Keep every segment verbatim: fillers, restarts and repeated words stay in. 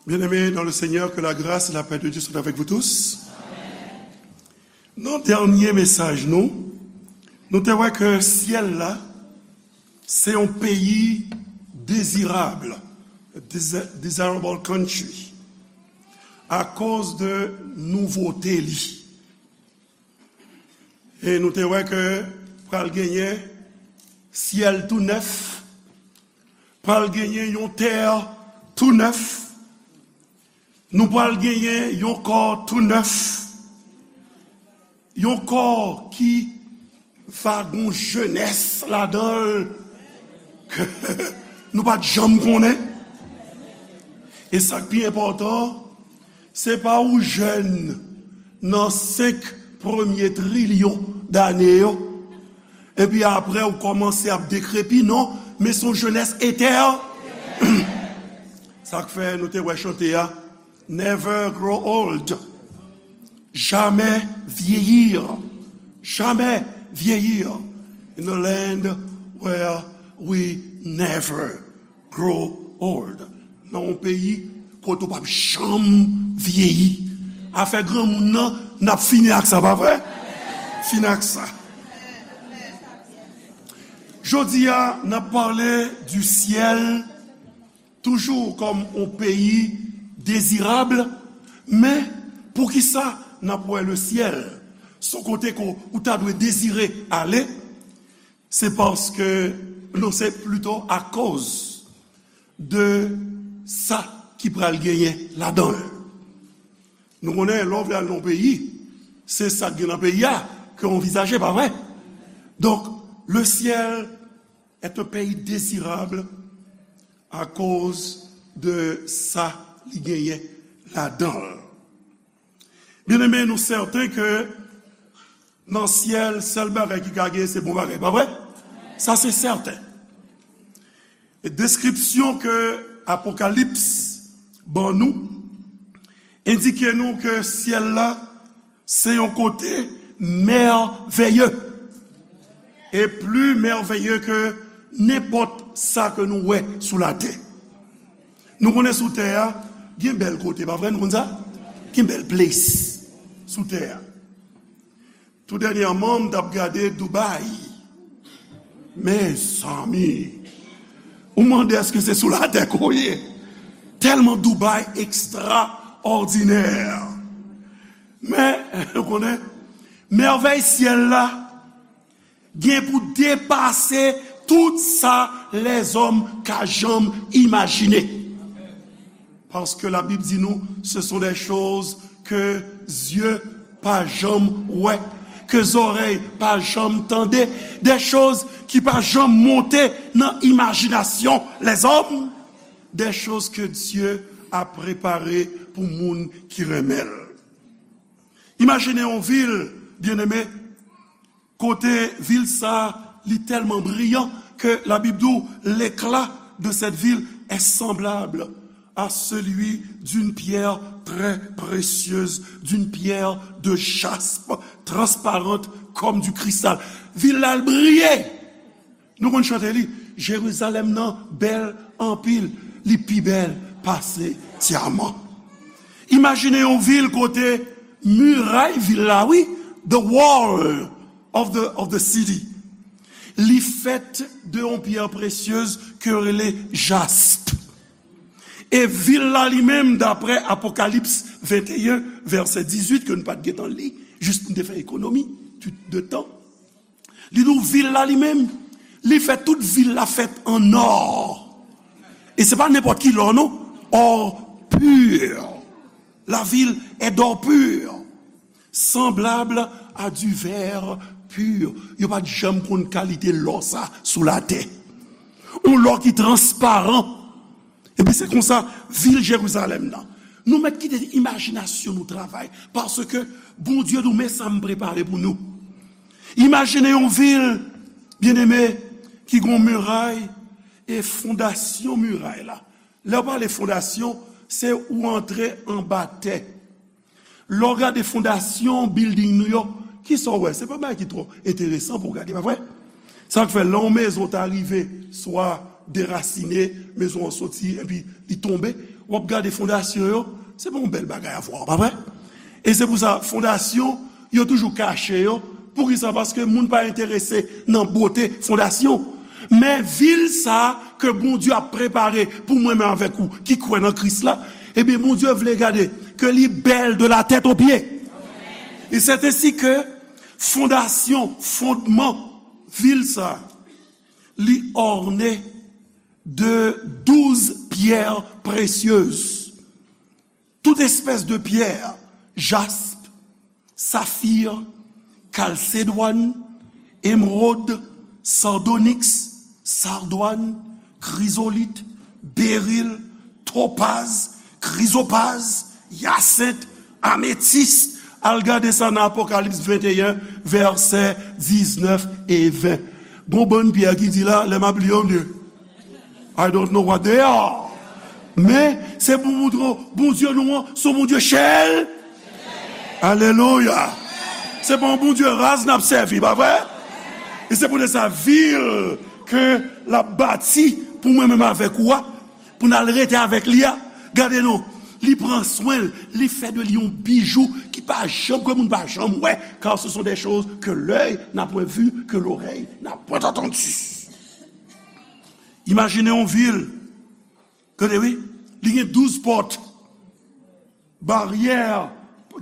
Bien-aimés dans le Seigneur, que la grâce et la paix de Dieu soient avec vous tous. Nan dènye mesaj nou, nou te wè ke syèl la, se yon peyi dezirab, desi-, desirable country, akoz de nouvote li. E nou te wè ke pral genyen syèl tou nèf, pral genyen yon tè tou nèf, nou pral genyen yon kò tou nèf, yon kò ki va gon jenès ladan l ke nou pa t janm konnen. E sa k pi enpòtan, se pa ou jèn nan senk premye trilyon dane yo, epi apre ou kòmanse ap dekrepi, non, men se yon jenès etè. Sa k fè nou te wè chante a, Never grow old. Jamais vieillir. Jamais vieillir. In a land where we never grow old. Nan yon peyi kote w p ap janm vyeyi. Afè granmoun nan, n ap fini ak sa, pa vre? Fini ak sa. Jodi a, n ap pale du ciel, toujou kòm yon peyi dezirab, men poukisa n ap wè le ciel? Se yon kote ke ou ta dwe dezire ale, se paske, non, se plito akoz de sa ki pral genyen ladan l. Nou konnen, lè w vle al nan yon peyi, se sa k gen nan peyi a ke w anvizaje, pa vre? Donk, le ciel est un pays désirable akoz de sa li genyen ladan l. Bien-aimés, nou sèten ke nan syèl, sèl bagay ki ka genyen, se bon bagay, pa vre? Sa se sèten. E deskripsyon ke Apokalips ban nou endike nou ke syèl la se yon kote mèveye, e pli mèveye ke nenpòt sa ke nou wè sou latè. Nou konnen sou tè a, gen bèl kote, pa vre? Nou konn sa? Gen bèl place sou tè a. Tou dènyèman, m t ap gade Dubai. Mezanmi, ou mande èske se sou latè ke w ye? Tèlman Dubai ekstraòdinè. Men, ou konnen, mèvèy syèl la gen pou depase tout sa lèzòm ka janm imajine. Paske Labib di nou, ce sont des choses que yeux pa janm wè, ke zòrèy pa janm tande, des choses ki pa janm monte nan imajinasyon lèzòm, des choses que Dieu a préparées pou moun ki renmen l. Imajine yon vil, bien-aimé, kote vil sa, li tèlman briyan ke Labib di w, l'éclat de cette ville est semblable à celui d'une pierre très précieuse, d'une pierre de jaspe, transparente comme du cristal. Vil la, l briye. Nou konn chante li, Jerizalèm nan bèl anpil, li pi bèl pase dyaman. Imajine yon vil kote miray vil la, wi, the wall of the, of the city, li fèt de yon pyè presyez ke yo rele jasp. E vil la li menm, daprè Apokalips venteyen, vèsè dizuit, ke nou pa t gentan li, jis nou te fè ekonomi de tan, li di w vil la li menm, li fè tout vil la fèt an ò. E se pa nenpòt ki lò, non. Or pur. La ville est d'or pur, semblable à du verre pur. Yo pa t janm konn kalite lò sa sou latè. Yon lò ki transparan. Epi se konsa, vil Jerizalèm nan. Nou mèt kite imajinasyon nou travay, paske Bondye di w, men sa m prepare pou nou. Imajine yon vil, byeneme, ki gon miray, e fondasyon miray la. Lè w pale fondasyon, se ou antre anba tè. Lè w gade fondasyon bilding nou yo, kisa w wè? Se pa bagay ki twò enteresan pou w gade, pa vre? Sa k fè, lè yon mezon ta rive, swa derasine, mezon an soti, epi li tonbe, W ap gade fondasyon yo, se pa yon bèl bagay a vwa, pa vre? E se pou sa, fondasyon, yo toujou kache yo. Poukisa? Paske moun pa enterese nan bote fondasyon. Men vil sa a ke Bondye ap prepare pou mwen menm avèk ou ki kwè nan Kris la, ebyen, Bondye vle gade ke li bèl de la tèt o pye. E c'est ainsi que fondasyon, fondman vil sa a, li orne de douz pierres précieuses. Tout espèce de pierre, jasp, safir, kalsedwàn, emwod, sardonyks, sardwàn, krizolit, beril, topaz, krizopaz, yasent, ametis. Al gade sa nan Apokalips venteyen, vèsè diznèf e ven. Gon bann pyè ki di la, lè m ap li yo, m di, I don't know what they are. Men, se pou montre w, Bondye nou an, se yon Bondye chèl. Alelouya. Se pa yon Bondye raz n ap sèvi, pa vre? E se poutèt sa, vil ke l ap bati pou mwen menm avèk ou a, pou n al rete avèk li a, gade non, li pran swen l, li fè de li yon bijou ki pa janm, ke moun pa janm wè, car ce sont des choses que l'œil n'a point vues, que l'oreille n'a point entendues. Imajine yon vil, gade wi, li gen douz pòt, baryè,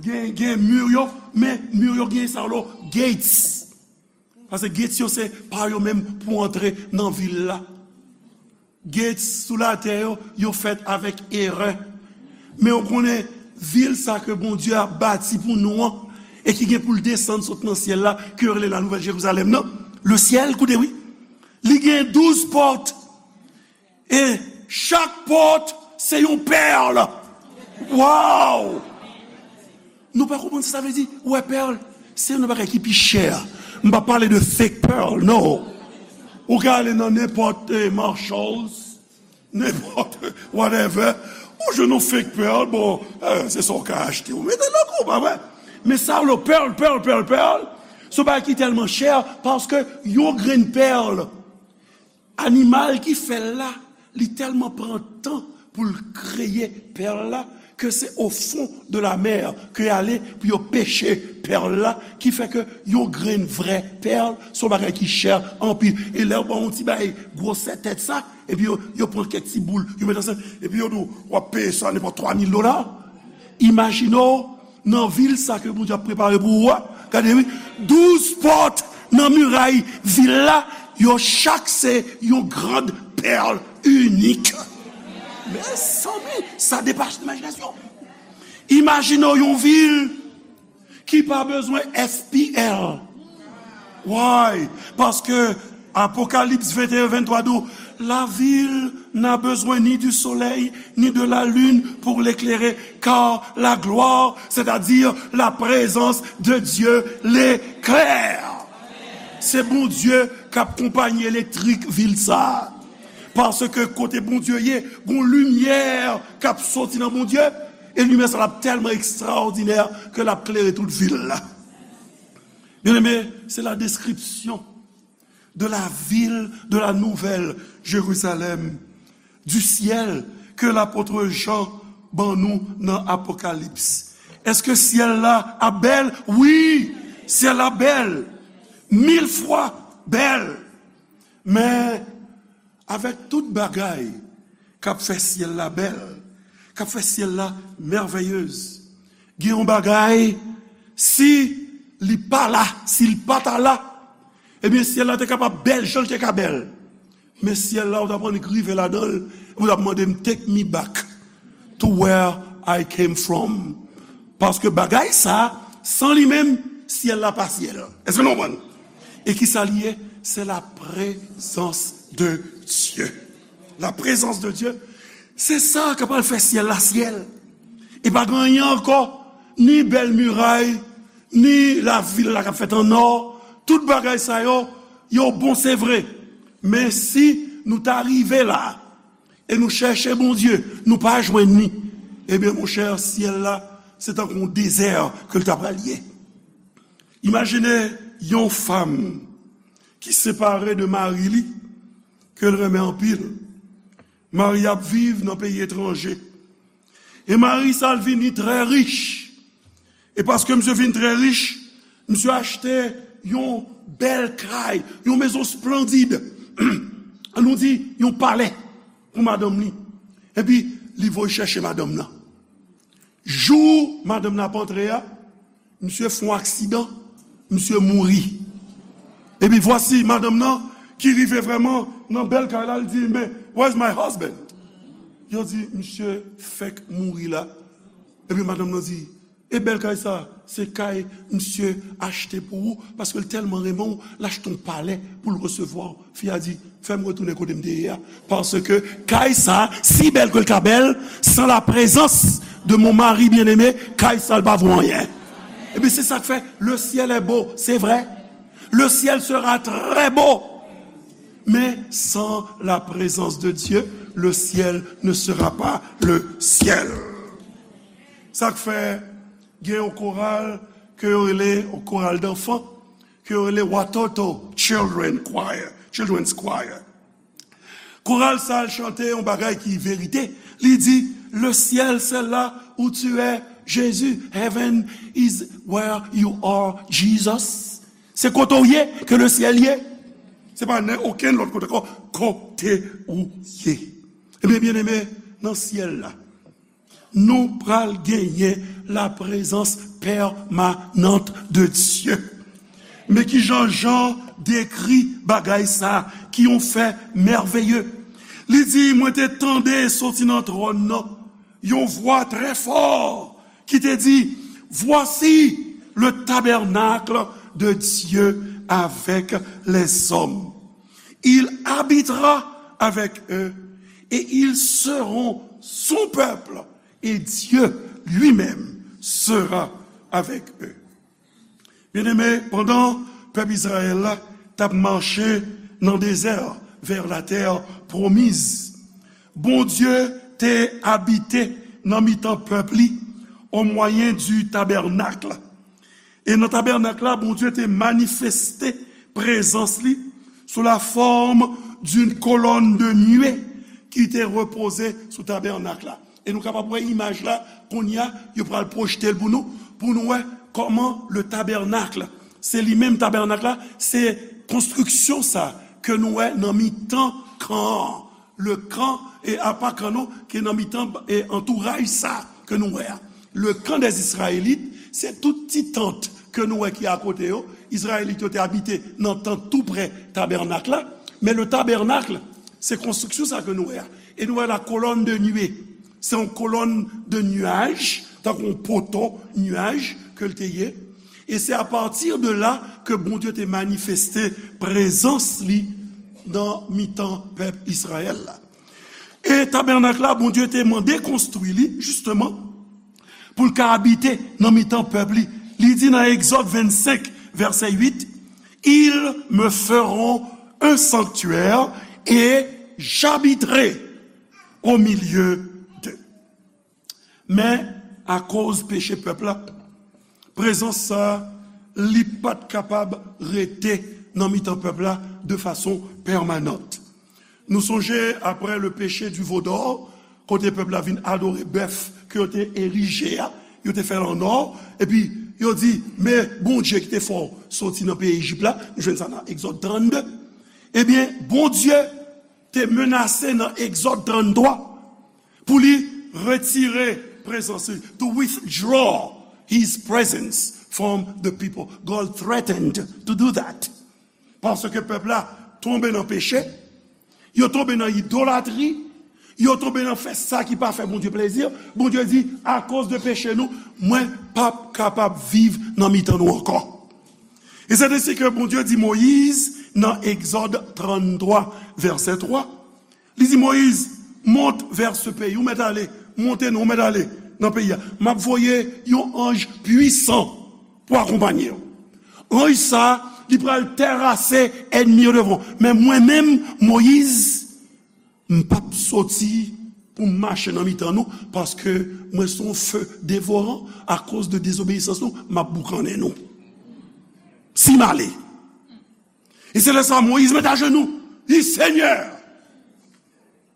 gen, gen mi yo, men mi yo gen sa yo, gates. Paske gates yo se pa yo menm pou antre nan vil la. Gates sou latè yo, yo fèt avèk erè. Men w konnen, vil sa ke Bondye ap bati pou nou an, e ki gen pou l desann sot nan syèl la, ke yo rele la Nouvèl Jerizalèm nan, le ciel, koute wi, li gen douz pòt. E chak pòt se yon pèl. Wow! Nou pa konprann sa sa vle di, ou wè pèl? Se youn nan bagay ki pi chè. M pa pale de fake pearl, non. Ou ka ale nan nenpòt, eh, Marshalls, nenpòt, whatever. Ou jwenn yon fake pearl, bon, eh, se sa w ka achte. Ou mete nan kou, pa vre? Men sa yo, pearl, pearl, pearl, pearl, se yon bagay ki tèlman chè, paske yon grenn pèl, animal ki fè l la, li tèlman pran tan pou l kreye pèl la, ke se o fon de la mè ke y ale pou yo peche pèl la, ki fè ke yon grenn vrè pèl, se yon bagay ki chè anpil. E lè yo ba w yon ti bagay gwosè tèt sa, epi yo, yo pran kèk ti boul, yo met ansanm, epi yo di w, w ap peye sa nenpòt twa mil dola. Imajine w, nan vil sa ke Bondye ap prepare pou ou a, gade wi, douz pòt nan miray vil la, yo chak se yon grand pèl inik. Mezanmi, sa depase imajinasyon. Imajine w yon vil ki pa bezwen S P L. Why? Paske Apokalips venteyen venntwa di w, la ville n'a besoin ni du soleil, ni de la lune pour l'éclairer, car la gloire, c'est-à-dire la présence de Dieu, l'éclaire. Se Bondye k ap konpayi elektrik vil sa a. Paske kote Bondye ye, gon limyè k ap soti nan Bondye, e limyè sa l ap tèlman ekstraòdinè ke l ap klere tout vil la. Bien-aimé, c'est la description de la ville de la Nouvelle Jérusalem, du ciel ke lapot Jan ban nou nan Apokalips. Èske syèl la ap bèl? Wi, syèl la bèl. Mil fwa bèl. Men, avèk tout bagay k ap fè syèl la bèl, k ap fè syèl la mèvèyez, gen yon bagay, si li pa la, si l pa ta la, ebyen, syèl la te kapab bèl jan l te ka bèl. Men syèl la, ou t ap annik rive ladan l, ou t ap mande m, take me back to where I came from. Paske bagay sa, san li menm, syèl la pa syèl. Èske nou konprann? E ki sa li ye? Se la prezans de Dye. La prezans de Dye, se sa k ap al fè syèl la syèl. E pa gen anyen ankò, ni bèl miray, ni lavil la k ap fèt an nò, tout bagay sa yo, yo bon, se vre. Men si nou ta rive la, e nou chèche Bondye, nou pa jwenn li, ebyen, monchè, syèl la, se tankou yon dezè ke l ta pral ye. Imajine yon fanm ki separe de mari li, ke l renmen anpil. Mari ap viv nan peyi etranje. E mari sa l vini trè rich. E paske misye vin trè rich, misye achte yon bèl kay, yon mezon splandid. Ann nou di, yon palè pou madanm li. Epi, li voye chèche madanm nan. Jou madanm nan ap antre a, misye fè yon aksidan, misye mouri. Epi vwasi madanm nan ki rive vrèman nan bèl kay la, li di, "Men, where's my husband?" Yo di, "Misye fèk mouri la." Epi madanm nan di, "E bèl kay sa, se kay misye achte pou ou, paske l tèlman renmen w, l achte yon palè pou l resevwa w." Fi a di, "Fè m retounen kote m te ye a, paske kay sa, si bèl ke l ka bèl, sans la présence de mon mari bien-aimé, kay sa l pa vo anyen." Epi se sa k fè, le ciel est beau, c'est vrai. Le ciel sera très beau. Mais sans la présence de Dieu, le ciel ne sera pas le ciel. Sa k fè gen yon koral ke yo rele, yon koral danfan, ke yo rele Watoto Children Choir, Children's Choir. Koral sa al chante yon bagay ki verite. Li di, "Le ciel, c'est là où tu es, Jésus. Heaven is where you are, Jesus." Se kote w ye ke le ciel ye. Se pa nan okenn lòt kote ankò, kote ou ye. Ebyen, byeneme, nan syèl la, nou pral genyen la prezans pèmanant de Dye. Men ki jan Jan dekri bagay sa ki yon fè mèveye. Li di, mwen te tande soti nan twòn nan yon vwa trè fò ki te di, voici le tabernacle de Dieu avec les hommes. Il habitera avec eux et ils seront son peuple et Dieu lui-même sera avec eux. Byeneme, pandan pèp Izrayèl la t ap mache nan dezè a vè la tè pwomiz, Bondye te abite nan mitan pèp li o mwayen di tabènak. E nan tabènak la, Bondye te manifeste prezans li sou la forme d'une colonne de nuée ki te repoze sou tabènak la. E nou kapab wè imaj la, kounye a, yo pral pwojte l pou nou, pou nou wè kòman le tabernacle, se li menm tabènak la, se konstriksyon sa ke nou wè nan mitan kan an. Le kan, e apa kan non, ki nan mitan, e antouraj sa ke nou wè a. Le kan dè Izrayelit, se tout ti tant ke nou wè ki akote yo. Izrayelit yo te abite nan tant tou prè tabènak la. Men le tabernacle, se konstriksyon sa ke nou wè a. E nou wè la colonne de nuée. Se yon kolòn de nuaj, tankou yon poto nuaj ke l te ye. E se apati de la ke Bondye te manifeste prezans li nan mitan pèp Izrayèl la. E tabènak la, Bondye te mande konstwi li, jisteman, pou l ka abite nan mitan pèp li. Li di nan Egzòd vennsenk, vèsè uit, ils me feront un sanctuaire et j'habiterai au milieu d'eux. Men, akoz peche pèp la, prezans sa a, li pa t kapab rete nan mitan pèp la de fason pèmanant. Nou sonje, après le péché du veau d'or, kote pèp la vin adore bèf ke yo te erije a, yo te fè l an nò, epi yo di, men Bondye ki te fè w soti nan peyi Ejip la, nou jwenn sa nan Egzòd trannde. Ebyen, Bondye te menase nan Egzòd tranntwa pou li retire prezans li, to withdraw his presence from the people. God threatened to do that. Paske pèp la tonbe nan peche, yo tonbe nan idolatri, yo tonbe nan fè sa ki pa fè Bondye plezi. Bondye di, akoz de peche nou, mwen p ap kapab viv nan mitan nou ankò. E se de si ke Bondye di Moyiz nan Egzòd tranntwa, vèsè twa, li di Moyiz, monte vers ce pays, ou mèt ale, monte non, ou mèt ale nan peyi a. M ap voye yon anj pwisan pou akonpanye w. Anj sa a, li pral terase ènmi yo devan w. Men mwen menm, Moyiz, m p ap soti pou m mache nan mitan nou, paske mwen se yon fe devoran, akoz de dezobeyisans nou, m ap boukannen nou. Si m ale. E se lè sa a Moyiz met ajenou, li di, Senyè,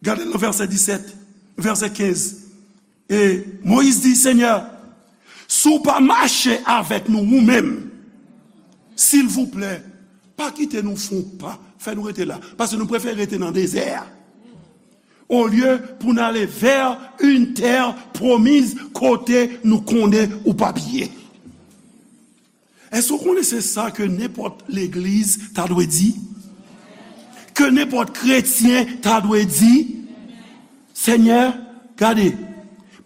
gade nan vèsè disèt, vèsè kenz, E Moyiz di, Senyè, si w pa mache avèk nou ou menm, silvouplè, pa kite nou fè yon pa, fè nou rete la, paske nou prefere rete nan dezè a, olye pou n ale vè yon tè pwomiz kote nou konnen ou p ap ye. Èske w konnen se sa ke nenpòt legliz ta dwe di? Ke nenpòt kretyen ta dwe di? Senyè, gade,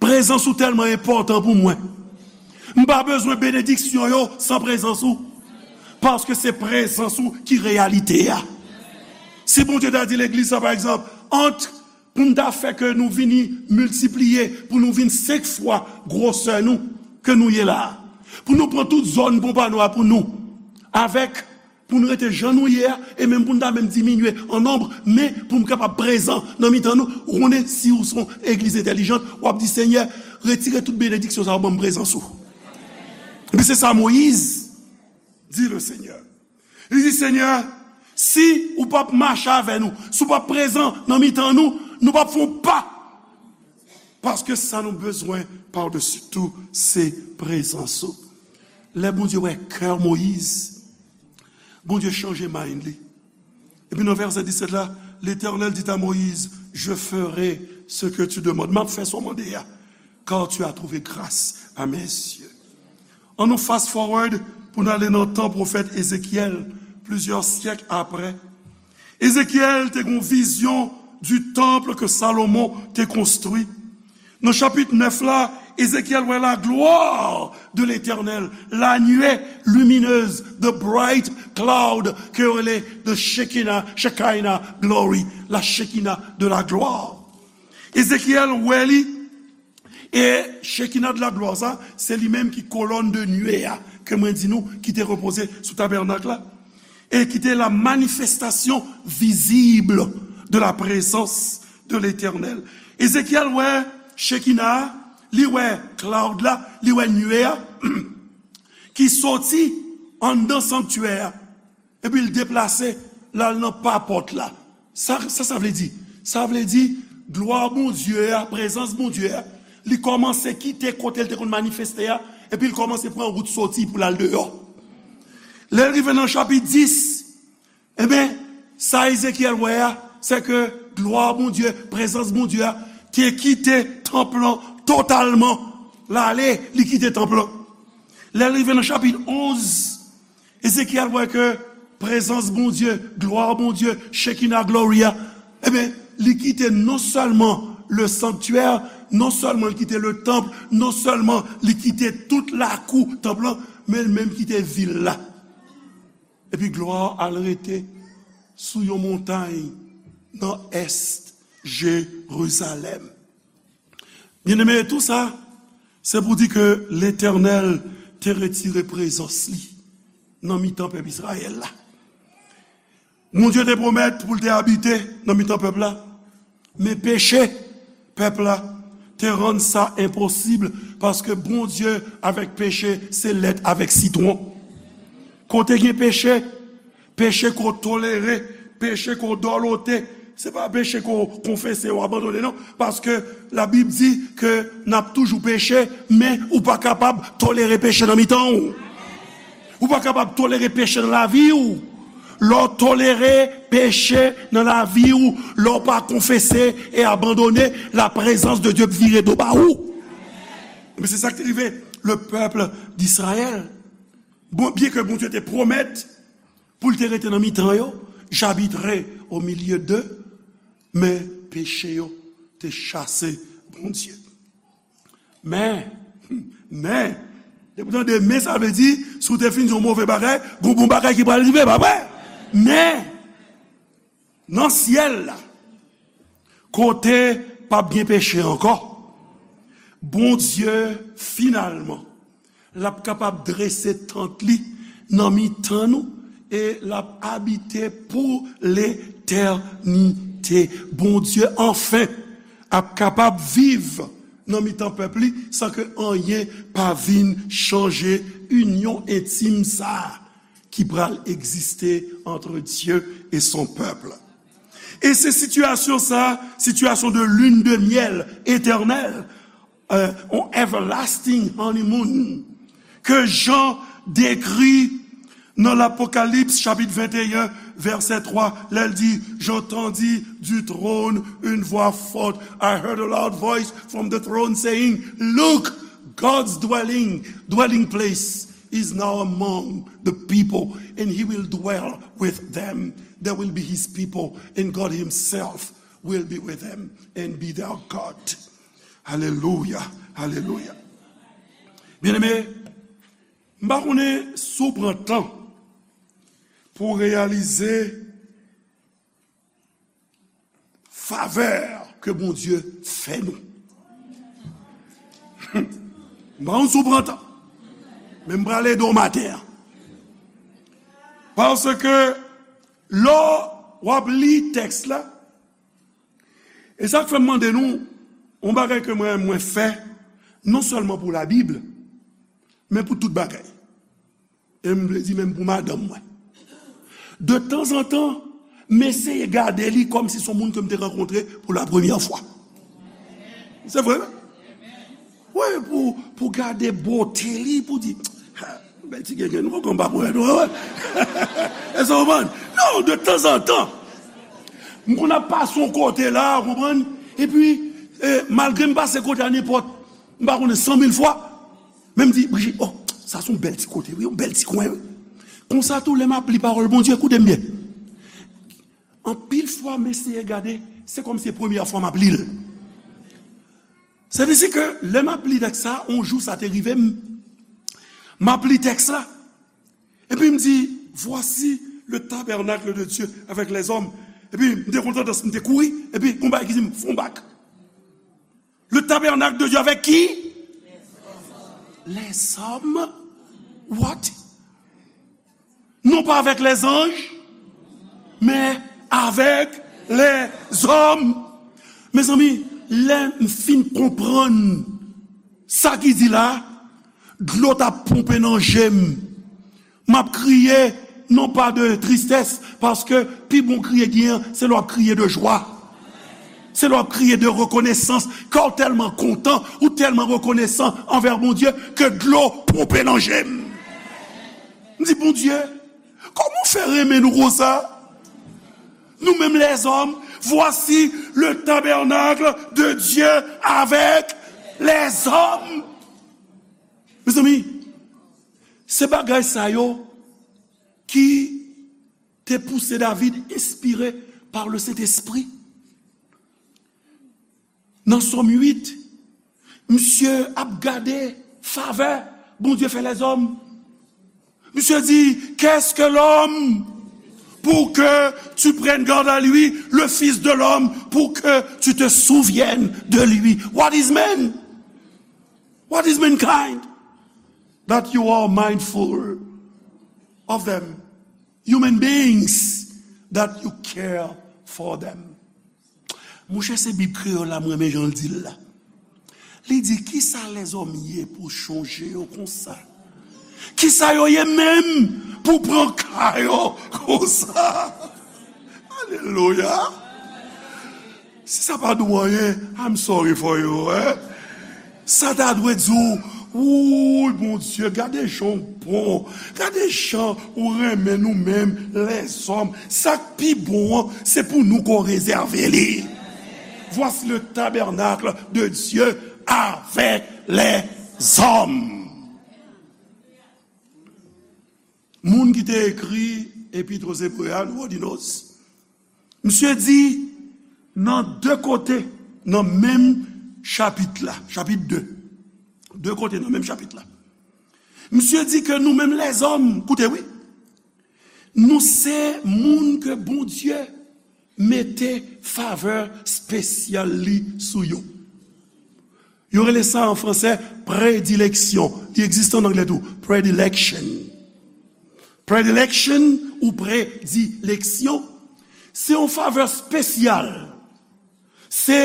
prezans ou tèlman enpòtan pou mwen. M pa bezwen benediksyon yo san prezans ou. Paske se prezans ou ki reyalite a. Si Bondye ta di legliz sa, pa egzanp, ant pou n ta fè ke nou vini miltipliye, pou nou vin senk fwa gwosè nou ke nou ye la a, pou nou pran tout zòn Pompanou a pou nou, avèk, pou nou rete jan nou ye a, e menm pou n ta menm diminye an nonb, men pou m kapab prezan nan mitan nou. Ou konnen, si ou se yon legliz entèlijant, w ap di, Senyè, retire tout benediksyon sa yo, ban m prezans ou. Epi se sa Moyiz di Lesenyè. Li di, Senyè, si ou p ap mache avè nou, si ou p ap prezan nan mitan nou, nou p ap fè yon pa. Paske sa nou bezwen padesi tou, se prezans ou. Lè Bondye wè kè Moyiz, Bondye chanje mind li. Epi nan vèsè disèt la, Letènèl dit à Moïse, je ferai ce que tu demandes. M ap fè sa w mande a, car tu as trouvé grâce à mes yeux. Ann nou fast forward pou n ale nan tan pwofèt Ezekyèl, plizyè syèk apre. Ezekyèl te gen yon vizyon du temple que Salomon te konstwi. Nan chapit nèf la, Ezekyèl wè la gloire de l'Éternel, la nuée lumineuse, the bright cloud, ke yo rele the Shekinah, Shekinah glory, la Shekinah de la gloire. Ezekyèl wè li, e Shekinah de la gloire sa, se li menm ki kolòn de nuée a, ke mwen di nou, ki te repoze sou tabènak la, e ki te la manifestation visible de la présence de l'Éternel. Ezekyèl wè Shekinah, li wè cloud la, li wè nuée a, ki soti anndan sanktyè a, epi l deplase, l al nan pa pòt la. Sa, sa, sa vle di? Sa vle di, glwa Bondye a, prezans Bondye a, li kòmanse kite kote l te konn manifeste a, epi l kòmanse pran wout soti pou l al deyò. Lè l rive nan chapit dis, Ebyen, sa Ezekyèl wè a, se ke glwa Bondye, prezans Bondye a, te kite tanp lan totalman. L ale, li kite tanp lan. Lè l rive nan chapit onz, Ezekyèl wè ke prezans Bondye, glwa Bondye, Shekinah glory a, ebyen, li kite non sèlman le sanctuaire, non sèlman li kite le temple, non sèlman li kite tout lakou tanp lan, men l menm kite vil la. Epi glwa al rete sou yon montay nan ès Jerizalèm. Byeneme, tou sa, se pou di ke Letènèl te retire prezans li nan mitan pèp Izrayèl la. Bondye te pwomèt pou l te abite nan mitan pèp la. Men peche pèp la te rann sa enposib, paske Bondye avèk peche se lèt avèk sitwon. Kote gen peche, peche ko tolere, peche ko dòlote, se pa peche ko konfese ou abandone non, paske Labib di ke n ap toujou peche, men ou pa kapab tolere peche nan mitan w. Ou pa kapab tolere peche nan lavi w. Lè w tolere peche nan lavi w, lè w pa konfese e abandone, la prezans de Dye vire do ba ou. Men se sa k te rive le pèp d'Izrayèl. Bon, byen ke Bondye te pwomèt pou l te rete nan mitan yo, j'habiterai au milieu d'eux, men peche yo te chase Bondye. Men, men, depi w tande men, sa vle di, si w te fin di yon move bagay, gon bon bagay ki pral rive, pa vre? Men, nan syèl la, kote p ap gen peche ankò, Bondye, finalman, l ap kapab drese tant li nan mitan nou e l ap abite pou letènite. Bondye, anfen, ap kapab viv nan mitan pèp li san ke anyen pa vin chanje inyon entim sa a ki pral egziste entre Dieu et son peuple. E se sitiyasyon sa a, situation de lune de miel éternelle, euh, yon everlasting honeymoon ke Jan dekri nan Lapokalips chapit venteyen, vèsè twa, lè l di, J'entendis du trône une voix forte. I heard a loud voice from the throne saying, Look, God's dwelling, dwelling place is now among the people, and he will dwell with them. They will be his people, and God himself will be with them and be their God. Alelouya, alelouya. Byeneme, m pa konnen si w pran tan pou w reyalize favè ke Bondye fè nou. M pa konn si w pran tan, men m prale ede w maten an. Paske lè w ap li tèks la, e sa k fè m mande nou, yon bagay ke mwen, mwen fè, non sèlman pou Labib, men pou tout bagay. E m vle di menm pou madanm mwen. De tanzantan, m eseye gade li kòmsi se yon moun ke m te rankontre pou la premyè fwa. Se vre, wi. Wi, pou, pou gade bote li, pou di, "Ha, bèl ti grenn, nou konn pa pou wè, nou wè." Èske w konprann? Non, de tanzantan. M konn ap pase yon kote la, w konprann? Epi, eh, malgre m pase kote a nenpòt, m pa konnen san mil fwa, men m di, "Brigitte, oh, sa se yon bèl ti kote, wi, yon bèl ti kwen, wi." Konsa tou, lè m ap li pawòl Bondye, koute m byen. Anpil fwa, m eseye gade, se kòmsi se premyè fwa m ap li l. Se vle di ke lè m ap li tèks sa, yon jou sa te rive m, m ap li tèks la, epi m di, Voici le tabernacle de Dieu avec les hommes. Epi m te kontan, m te kouri, epi gon bagay ki di m, Fè yon bak. Le tabernacle de Dieu avec qui? Les hommes. What? Non pas avec les anges, mais avec les hommes. Mezanmi, lè m fin konprann sa ki di la, dlo t ap ponpe nan je m. M ap kriye, non pa de tristès, paske pi bon kriye gen an, se lè w ap kriye de jwa. Se lè w ap kriye de rekonesans, kè w tèlman kontan, ou tèlman rekonesan anvè Bondye, ke dlo ponpe nan je m. M di, Bondye, kòman w fè renmen nou konsa? Nou menm lèzòm, voici le tabernacle de Dieu avec les hommes. Mezanmi, se bagay sa yo ki te pouse David, enspire pa le Sentespri. Nan Sòm uit, misye ap gade favè Bondye fè lèzòm. Misye di, Qu'est-ce que l'homme pour que tu prennes garde à lui, le fils de l'homme pour que tu te souviennes de lui? What is man? What is mankind that you are mindful of them? Human beings that you care for them. Monchè, se Bib kreyòl la, m renmen jan l di l la. Li di, Kisa lèzòm ye pou w chonje yo konsa? Kisa yo ye menm pou w pran ka yo konsa? Alelouya! Si sa pa di w anyen, I'm sorry for you, hein? Sa ta dwe di w, Wouy, Bondye, gade jan w bon, gade jan ou renmen nou menm, lèzòm. Sa k pi bon an, se pou nou ke w rezève li. Voici le tabernacle de Dieu avec les hommes. Moun ki te ekri Epître aux Hébreux a, nou di nou, misye di nan de kote nan menm chapit la, chapit de, de kote nan menm chapit la, misye di ke nou menm lèzòm, koute wi, nou se moun ke Bondye mete favè espesyal li sou yo. Yo rele sa an fransè predileksyon. Li egziste an anglè tou. Predilection. Predilection ou predileksyon, se yon favè espesyal. Se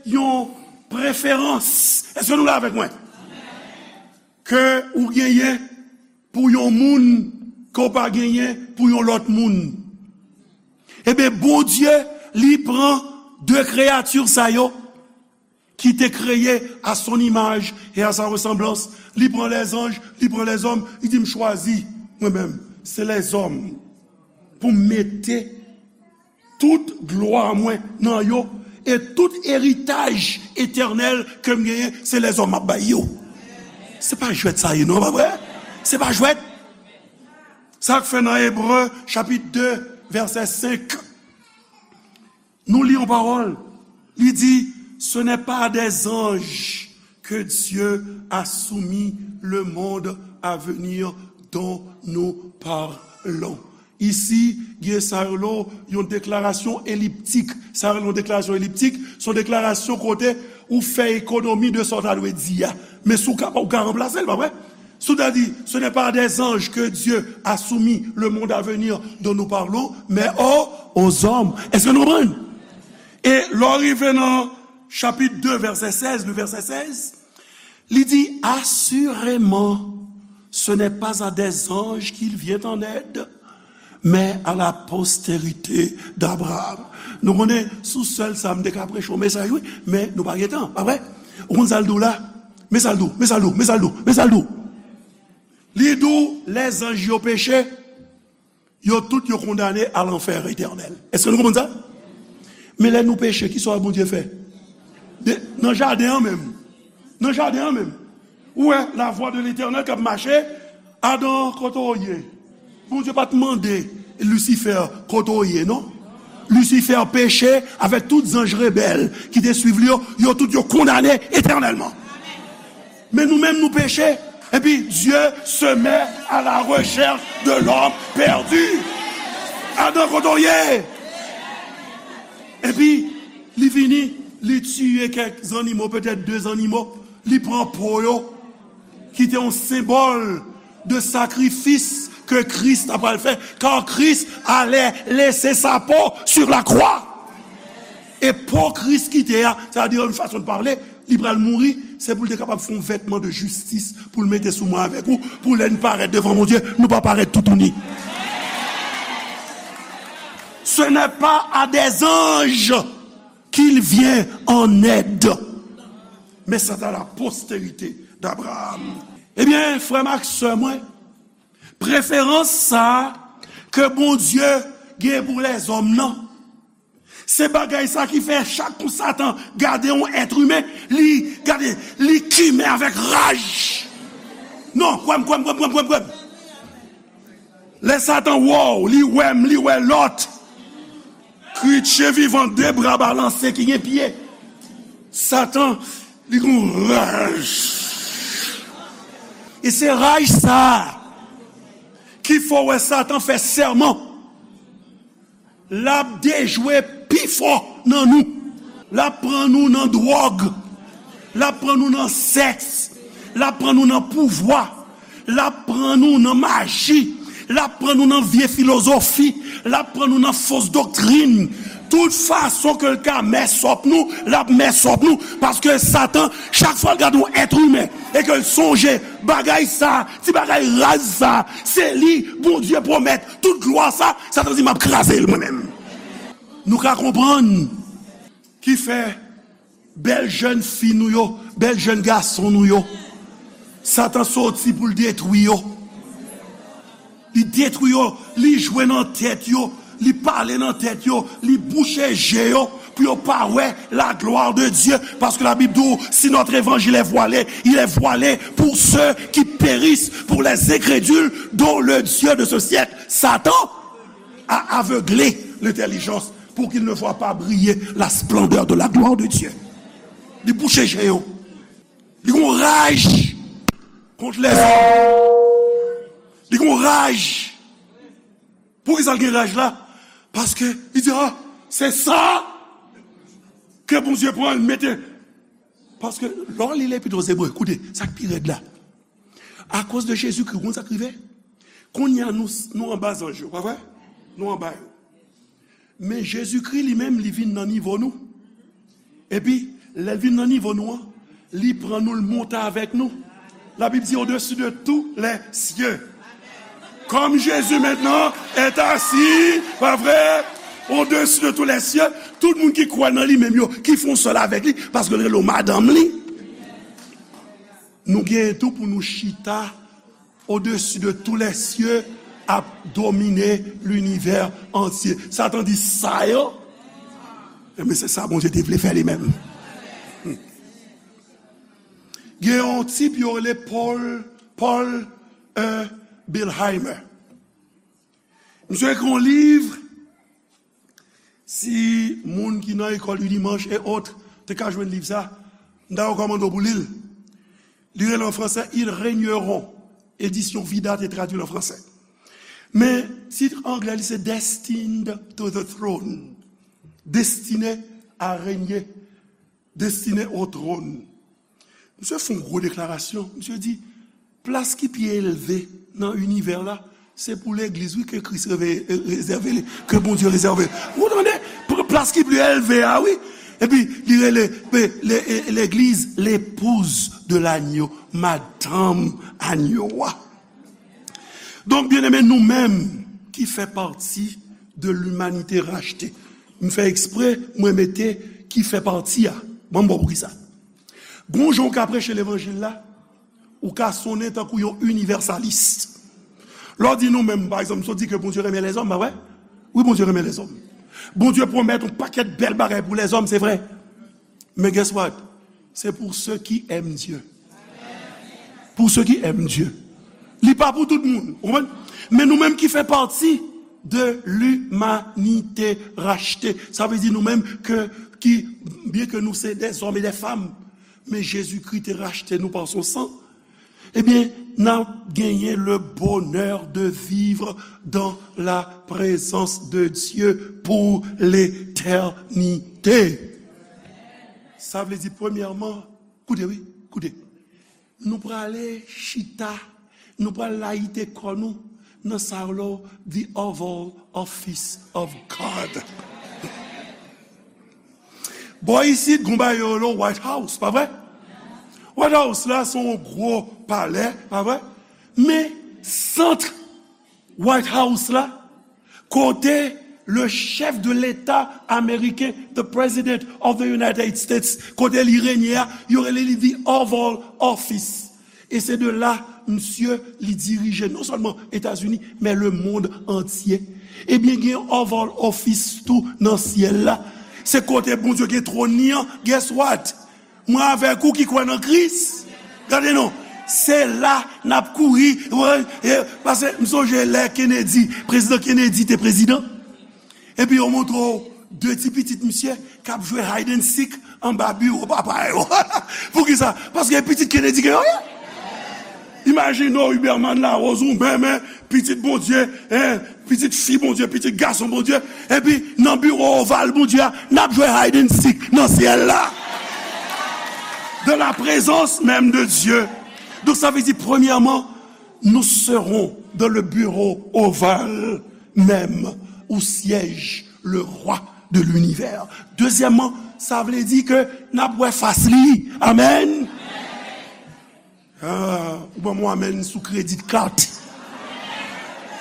yon preferans. Èske nou la avèk mwen? Ke ou genyen pou yon moun ke w pa genyen pou yon lòt moun. Ebyen, Bondye, li pran de kreyati sa yo, qui t'est créé à son image et à sa ressemblance. Li pran lèzanj, li pran lèzòm, li di, "M chwazi, mwen menm, se lèzòm pou m mete tout glwa mwen nan yo, e tout eritaj etènèl ke m genyen, se lèzòm m ap bay yo." Se pa jwèt sa ye, non, pa vre? Se pa jwèt. Sa k fè nan Ebre, chapit de, vèsè senk, nou li yon pawòl. Li di, "Ce n'est pas à des anges que Dieu a soumis le monde à venir dont nous parlons." Isi, gen sa yo rele yon deklarasyon eliptik. Sa yo rele yon deklarasyon eliptik, se yon deklarasyon kote ou fè ekonomi de sa w ta dwe di a. Men si w ka, ou ka ranplase l, pa vre? Si w ta di, "Ce n'est pas à des anges que Dieu a soumis le monde à venir dont nous parlons, mais aux, aux hommes." Èske nou konprann? E lè w rive nan chapit de, vèsè sèz, le vèsè sèz, li di, "Assurément, ce n'est pas à des anges qu'il vient en aide, mais à la postérité d'Abraham." Nou konnen, sou sèl sa, m te ka preche yon mesaj, wi, men nou pa gen tan, pa vre? Ou konn sa l di w la? Men sa l di w, men sa l di w, men sa l di w, men sa l di w. Li di w, lèzanj yo peche, yo tout yo kondane a lanfè etènèl. Èske nou konprann sa? Men lè nou peche, ki sa Bondye fè? De, nan jaden an menm. Nan jaden an menm. Ou wè, la voix de l'Éternel k ap mache, Adan, kote w ye? Bondye pa t mande Lisifè kote w ye, non. Lisifè peche avèk tout zanj rebèl ki te swiv li yo, yo tout yo kondane etènèlman. Men nou menm nou peche, epi Dieu se met à la recherche de l'homme perdu. Adan, kote w ye? Epi li vini, li tiye kèk zannimo, petèt de zannimo, li pran po yo, ki te yon senbòl de sakrifis ke Kris ta pral fè, car Christ allait laisser sa peau sur la croix. E po Kris kite a, sa vle di, yon fason de pale, li pral mouri, se pou l te kapab fè yon vètman de jistis, pou l mete sou mwen avèk ou, pou lè n parèt devan Bondye, nou pa parèt toutouni. Ce n'est pas à des anges qu'il vient en aide. Mais c'est à la postérité d'Abraham. Ebyen, frè m ak sè mwen, preferans sa a ke Bondye gen pou lèzòm nan, se bagay sa ki fè chak kou Satan gade yon èt imen, li gade, li kimen avèk raj. Non, kwè m, kwè m, kwè m, kwè m, kwè m, kwè m. Lè Satan wè w, li wè m, li wè lòt. Kretyen vivan, de bra balanse ki gen pye. Satan, li gon raj. E se raj sa a ki fè w wè Satan fè sèman. L ap dejwe pi fò nan nou. L ap pran nou nan dwòg. L ap pran nou nan sèks. L ap pran nou nan pouvwa. L ap pran nou nan maji. L ap pran nou nan vye filozofi. L ap pran nou nan fos doktrin. Tout fason ke l ka mès op nou, l ap mès op nou. Paske Satan, chak fwa l gade yon èt imen e ke l sonje bagay sa, ti bagay raz sa, se li Bondye pwomèt tout glwa sa, Satan di, "M ap kraze l mwen menm." Nou ka konprann ki fè bèl jèn fi nou yo, bèl jèn gason nou yo, Satan soti pou l detwi yo. Li detwi yo, li jwe nan tèt yo, li pale nan tèt yo, li bouche je yo, pou yo pa wè la gloire de Dieu, parce que la Bible dit, si notre évangile est voilé, il est voilé pour ceux qui périssent, pour les incrédules, dont le Dieu de ce siècle, Satan, a aveuglé l'intelligence pour qu'ils ne voient pas briller la splendeur de la gloire de Dieu. Li bouche je yo. Li gon raj kont lèzòm. Li gon raj. Poukisa l gen raj la? Paske li di, "Ah, se sa ke Bondye pran, l mete." Paske lè w li Lepit o Zebre, koute, sa k pi rèd la. Akoz de Jezikri, ou konn sa k rive? Kounye a nou, nou anba zanj yo, pa vre? Nou anba yo. Men Jezikri li menm, li vin nan nivo nou. Epi, lè l vin nan nivo nou an, li pran nou, l monte avèk nou. La Bible dit au-dessus de tous les cieux. Comme Jésus maintenant est assis, pas vrai, au-dessus de tous les cieux, Tout moun ki kwè nan li menm yo, ki fè yon sèl avèk li, paske l rele w madanm li. Nou genyen tou pou nou chita au-dessus de tous les cieux, ap domine linivè antye. Satan di sa yo. Ebyen, se sa Bondye te vle fè li menm. Gen yon tip yo rele Paul, Paul E. Bilheimer. Misye ekri yon liv. Si moun ki nan ekòl Unimanche et autres te ka jwenn liv sa, m ta rekòmande w pou li l. Li rele an fransè Ils régneront. Edisyon Vida te tradui l an fransè. Men tit anglè li se Destined to the Throne. Destine à régner. Destine au trône. Misye fè yon gwo deklarasyon. Misye di, plas ki pi elve nan inivè la, se pou legliz, wi, ke Kris reve-, rezève li, ke Bondye rezève. Ou tande? Pou plas ki pi elve a, wi. Epi, li rele, pe-, le-, e-, legliz, l'épouse de l'agneau, madanm agno a. Donk, byeneme, nou menm ki fè pati de l'humanité rachetée. M fè eksprè, mwen mete ki fè pati a. Bon, m bon, poukisa? Gon jan w ka preche levanjil la, ou ka sonnen tankou yon inivèsalis. Lè w di nou menm, pa egzanp, si w di ke Bondye renmen lèzòm, pa vre? Wi, Bondye renmen lèzòm. Bondye pwomèt yon pakèt bèl bagay pou lèzòm, se vre. Men guess what? C'est pour ceux qui aiment Dieu. Pour ceux qui aiment Dieu. Li pa pou tout moun, ou konprann? Men nou menm ki fè pati de l'humanité rachetée. Sa vle di nou menm ke, ki, byen ke nou se des hommes et des femmes, men Jezikri te rachte nou pa son san. Ebyen, n ap genyen le bonheur de vivre dans la présence de Dieu pour l'éternité. Sa vle di, premyèman, koute, wi, koute. Nou prale chita, nou pral layite kò nou nan sa yo rele the Oval Office of God. Bò isit, gon bagay yo rele White House, pa vre? White House la, se yon gwo palè, pa vre? Men, sant White House la, kote le chef de l'État américain, the President of the United States, kote li renye a, yo rele li the Oval Office. E se de la, misye, li dirije non sèlman Etazini, men le monde entier. Ebyen, gen Oval Office tou nan syèl la. Se kote Bondye gen twòn li an. Guess what? Mwen avèk ou ki kwè nan Kris, gade non, se la n ap kouri. Paske m sonje lè Kennedy, prezidan Kennedy te prezidan. Epi yo montre w de ti pitit misye k ap jwe hide and seek anba biwo papa yo. Poukisa? Paske pitit Kennedy gen yo ye. Imajine w, Huberman Larose, ou menm, pitit Bondye, en, pitit fi Bondye, pitit gason Bondye, epi nan biwo oval Bondye a, n ap jwe hide and seek nan syèl la. Dans la présence même de Dieu. Donk, sa vle di, premyèman, nous serons dans le bureau ovale même où siège le roi de l'univers. Dezyèmman, sa vle di ke n ap wè fas li. Amèn. Ah, ou ban m yon amèn sou credit card.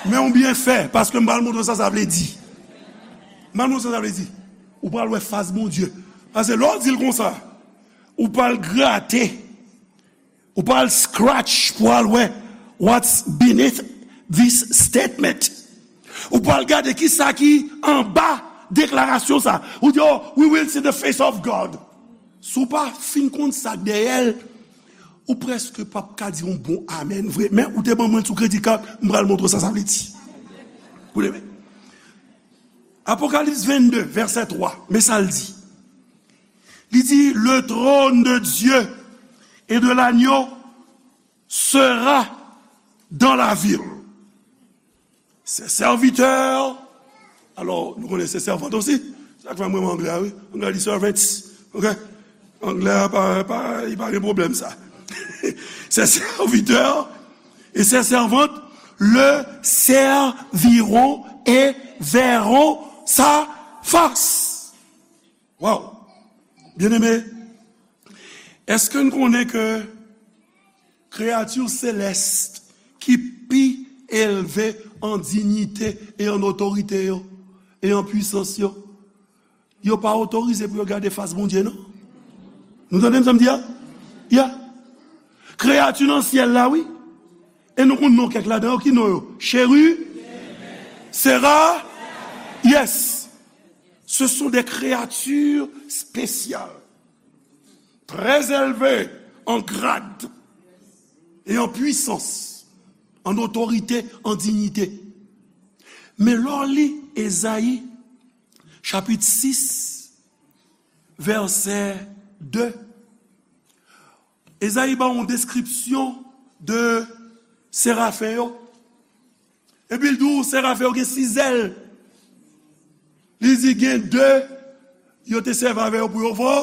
Men ou byen fè, paske m pral montre w sa sa vle di. M pral montre w sa sa vle di. Ou pral wè fas Bondye. Paske lè w di l konsa, ou pral grate, ou pral scratch pou al wè what's beneath this statement. Ou pral gade ki sa ki anba deklarasyon sa. Ou di, "Oh, we will see the face of God." Si w pa fin konn sa k dèyè l, ou prèske p ap ka di yon bon amèn vre. Men ou te ban mwen l sou credit card, m pral montre w sa sa vle di. Koute byen. Apokalips vennde, vèsè twa, men sa l di. Li di, "Le trône de Dieu et de l'agneau sera dans la ville. Ses serviteurs," Alò, nou konnen se sèvant osi. Sa k fè mwen renmen anglè a, wi. Anglè di servants. Ok? Anglè a pa, pa, li pa gen pwoblèm sa. Ses serviteurs et ses servantes le serviront et verront sa face. Wow! Byeneme, èske n konnen ke kreyati selès ki pi elve an diyite e an otorite yo, e an pwisans yo, yo pa otorize pou yo gade fas Bondye, non. Nou tande m sa m di a? Ya. Kreyati nan syèl la, wi. E nou konn non kèk ladan yo, ki non yo? Cheri, Sera, yes. Ce sont des créatures spéciales, très élevées en grade et en puissance, en autorité, en dignité. Men lè w li Ezayi, chapit sis, vèsè de, Ezayi ba yon deskripsyon de serafen yo. Epi l di w, serafen yo gen sis zèl. Li di gen de, yo te sèvi avè yo pou yo vo.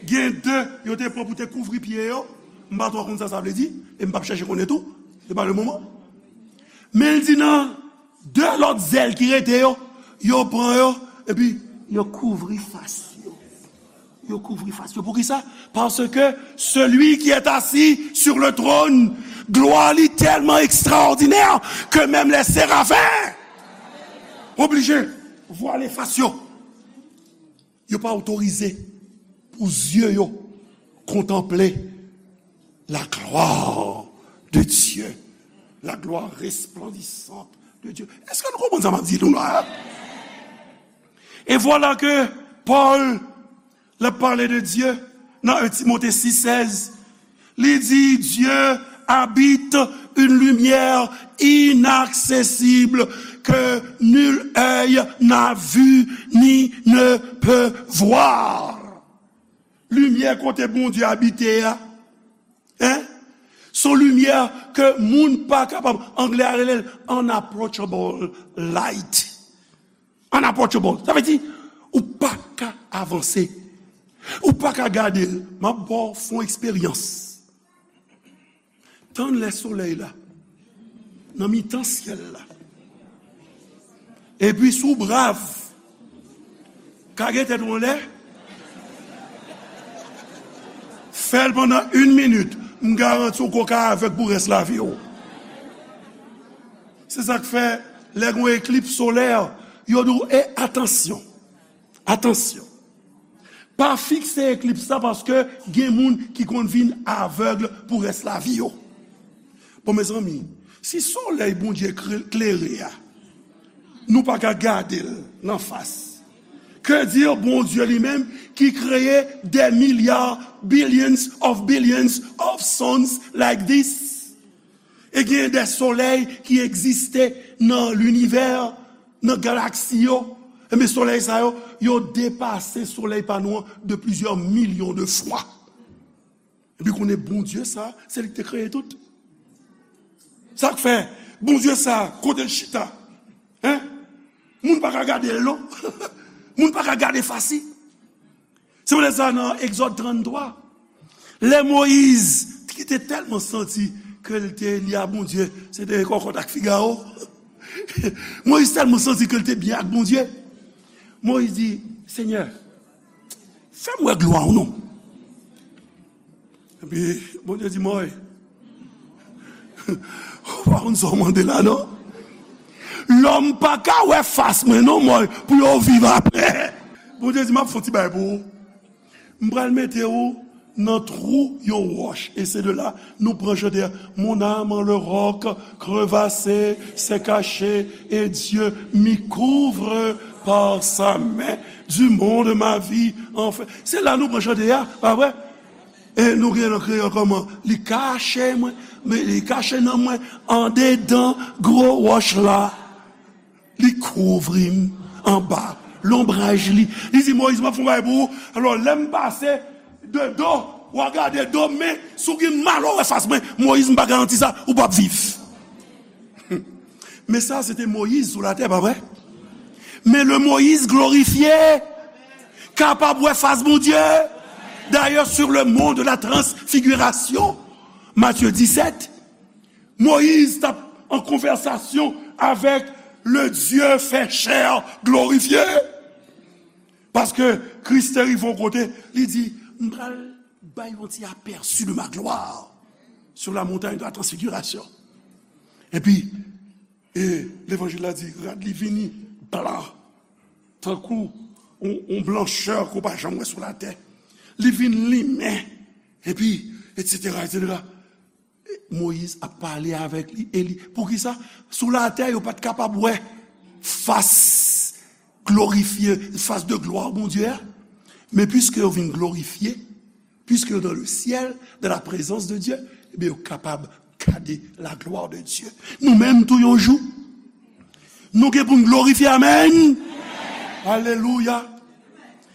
Gen de, yo te pran pou te kouvri pye yo. M pa twò konn sa sa vle di, e m p ap chèche konnen tou. Se pa le moman. Men l di nan de lòt zèl ki rete yo, yo pran yo, epi yo kouvri fas yo. Yo kouvri fas yo. Poukisa? Parce que celui qui est assis sur le trône, glwa li tèlman ekstraòdinè ke menm lè serafen oblije vwale fas yo. Yo pa otorize pou zye yo kontanple la gloire de Dieu, la gloire resplendissante de Dieu. Èske nou konprann sa m ap di nou la? E vwala ke Pòl, l ap pale de Dye nan en Timote sis sèz, li di, Dieu habite une lumière inaccessible que nul œil n'a vue ni ne peut voir. Limyè kote Bondye abite a, en, se yon limyè ke moun pa kapab, anglè a rele l unapproachable light. Unapproachable. Sa vle di, ou pa ka avanse. Ou pa ka gade l. M ap ba w fon eksperyans. Tann lè solèy la nan mitan syèl la. Epi si w brav, kage tèt ou anlè, fè l pandan yon minit, m garanti w ke w ka avèg pou rès lavi w. Se sa k fè, lè gen yon eklips solè, yo di w, e atansyon, atansyon. Pa fikse eklips la paske gen moun ki konn vin avèg pou rès lavi yo. Bon, mezanmi, si solèy Bondye kre-, klere a, nou pa ka gade l nan fas, que dire Bondye li menm ki kreye des milliards, billions of billions of suns like this? E gen de solèy ki egziste nan linivè, nan galaksi yo. Ebyen, solèy sa yo, yo depase solèy pa nou an de plizyè milyon de fwa. Epi konnen Bondye sa, se li ki te kreye tout. Sa k fè, Bondye sa, kote l chita? Hein? Moun pa ka gade l, non. Moun pa ka gade fas li. Se poutèt sa nan Egzòd tranntwa, lè Moyiz, ki te tèlman santi ke l te li a Bondye, se te kòkòt ak figawo. Moyiz tèlman santi ke l te byen ak Bondye. Moyiz di, Senyè, fè m wè glwa w non. Epi Bondye di, Mòy, ou pa konn sa w mande la, non? Lòm pa ka wè fas mwen, non, Mòy, pou yo viv apre. Bondye di, m ap fè yon ti bagay pou ou. M pral mete ou nan twou yon wòch. E se de la, nou pran chante a, Mon âme en le roc crevassé s'est cachée, et Dieu m'y couvre par sa main. Du monde ma vie enfin. Se la nou pran chante a, pa vre? E nou gen nan kreyòl kòman? Li kache mwen, men li kache nan mwen, andedan gwo wòch la. Li kouvri m anba lonbraj li. Li di, Moyiz, m ap fè yon bagay pou ou. Alò, lè m pase de do, w a gade do m, men si w gen mal w wè fas mwen, Moyiz, m pa garanti sa, ou p ap viv. Men sa, se te Moyiz sou latè, pa vre? Men le Moyiz glorifye, kapab wè fas Bondye. D'ailleurs, sur le mont de la transfiguration, Matthieu dix-sept, Moyiz t ap an konvèsasyon avèk le Dieu fait chair glorifié. Paske Kris te rive yon kote, li di, m pral bay yon ti aperçu de ma gloire sur la montagne de la transfiguration. Epi, e levanjil la di, rad li vini blan, tankou yon, yon blanchè ke w pa janm wè sou latè. Li vin limen, epi, etsetera, etsetera. Moyiz ap pale avèk li, e li, poukisa? Sou latè, yo pa t kapab wè fas glorifye, fas de glwa Bondye a. Men piske yo vin glorifye, puisque dans le ciel, dans la présence de Dieu, ebyen, yo kapab gade la gloire de Dieu. Nou menm tou yon jou, nou gen pou n glorifye, amèn. Alelouya.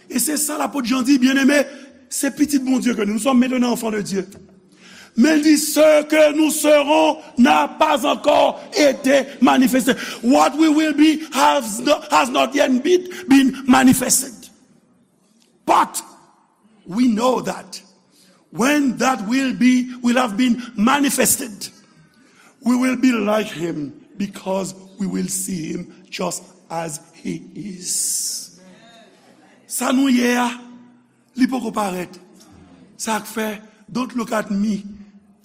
E se sa lapot Jan di, byeneme, se pitit Bondye ke nou, nous sommes maintenant enfants de Dieu. Men li di, ce que nous serons n'a pas encore été manifesté. What we will be has not, has not yet been, been manifested. But we know that when that will be, will have been manifested, we will be like him because we will see him just as he is. Sa nou ye a, li poko parèt. Sa k fè, don't look at me.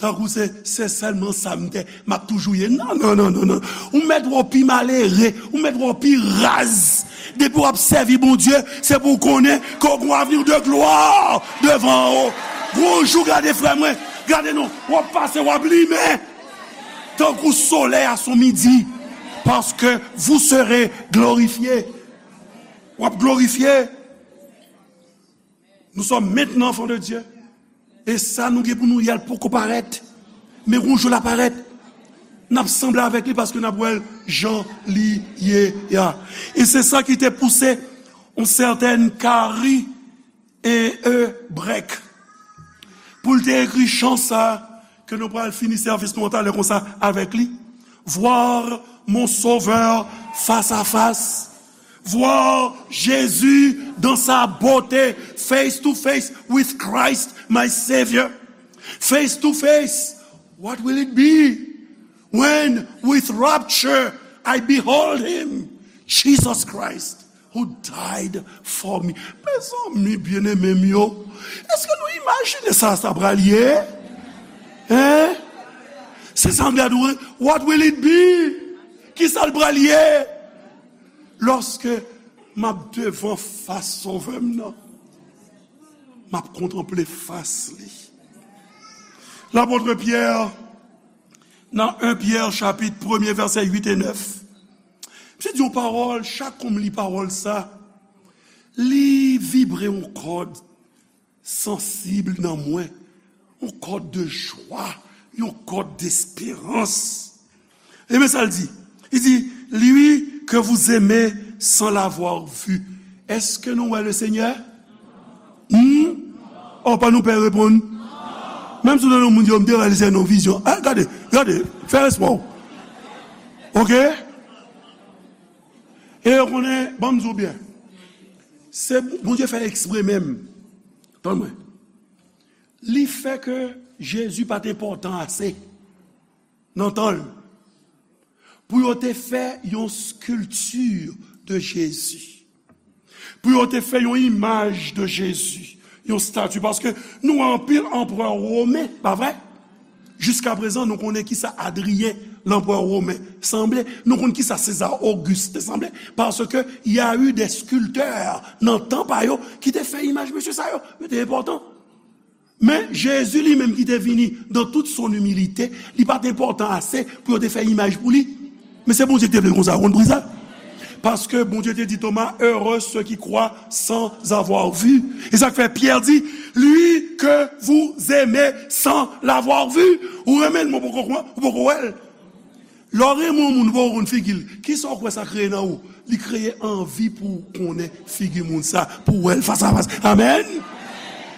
Tankou se, se sèlman sa m te, m ap toujou ye. Non, non, non, non, non. Ou mèt wè w pi malere, ou mèt wè w pi raz. Depi w ap sèvi Bondye, se pou w konnen ke w gen yon avni de glwa devan w. Gon jou, gade frè mwen, gade non, w ap pase, w ap limen. Tankou solèy a sou midi, parce que vous serez glorifiés. W ap glorifye. Nous sommes maintenant enfants de Dieu. E sa nou gen pou nou ye a, l poko parèt. Men yon jou l ap parèt. N ap sanble avèk li paske n ap wè l jan li ye a. E se sa ki te pouse yon sètèn Carrie E. E. Breck pou l te ekri chan sa a ke nou pral fini sèvis nou an talè konsa avèk li. Voir mon Sauveur face à face. Voir Jésus dans sa beauté, face to face with Christ, my Savior. Face to face, what will it be when, with rapture, I behold him, Jesus Christ, who died for me? Mezanmi byeneme m yo, èske nou imajine sa sa pral ye? Hein? Se sa m gade, what will it be? Kisa l pral ye? Lòske m ap devan fas Sovè m nan, m ap kontanple fas li. Lapot Pyè, nan en Pyè chapit premye vèsè uit e nèf, misye di yon pawòl, chak kou m li pawòl sa, li vibre yon kòd sansib nan mwen, yon kòd de jwa, yon kòd desperans. E men sa l di. Li di, lui que vous aimez sans l'avoir vu. Èske nou wè le Senyè? Hmm? Oh, pa nou pè reponn. Menm si w nan yon moun di, yo, m te wè le Senyè nan vizyon. Ah, gade, gade, fè respè w. Oke? E yo konnen, ban m di w byen. Se Bondye fè l ekspre menm. Tann mwen. Li fè ke Jezi pa t enpòtan ase nan tan l pou yo te fè yon skilti de Jezi, pou yo te fè yon imaj de Jezi, yon estati. Paske nou wè anpil anperè women, pa vre? Jiskaprezan, nou konnen kisa Adriyen, lanperè women, sanble, nou konn kisa Seza Ogis te sanble, paske y a eu des sculpteurs nan tan pa yo ki te fè imaj mesye sa yo. Yo te enpòtan. Men Jezi li menm ki te vini dans toute son humilité, li pa t enpòtan ase pou yo te fè imaj pou li. Men se Bondye ki te vle l konsa, ou konn poukisa? Paske Bondye te di Toma, heureux ceux qui croient sans avoir vu. E sa k fè Pyè di, lui que vous aimez sans l'avoir vu. Ou renmen l, men w poko kwè, ou poko wè l. Lè w renmen yon moun, ou poko konn figi l, kisa w kwè sa kreye nan ou? Li kreye anvi pou w konnen figi moun sa, pou w wè l fas a fas. Amèn.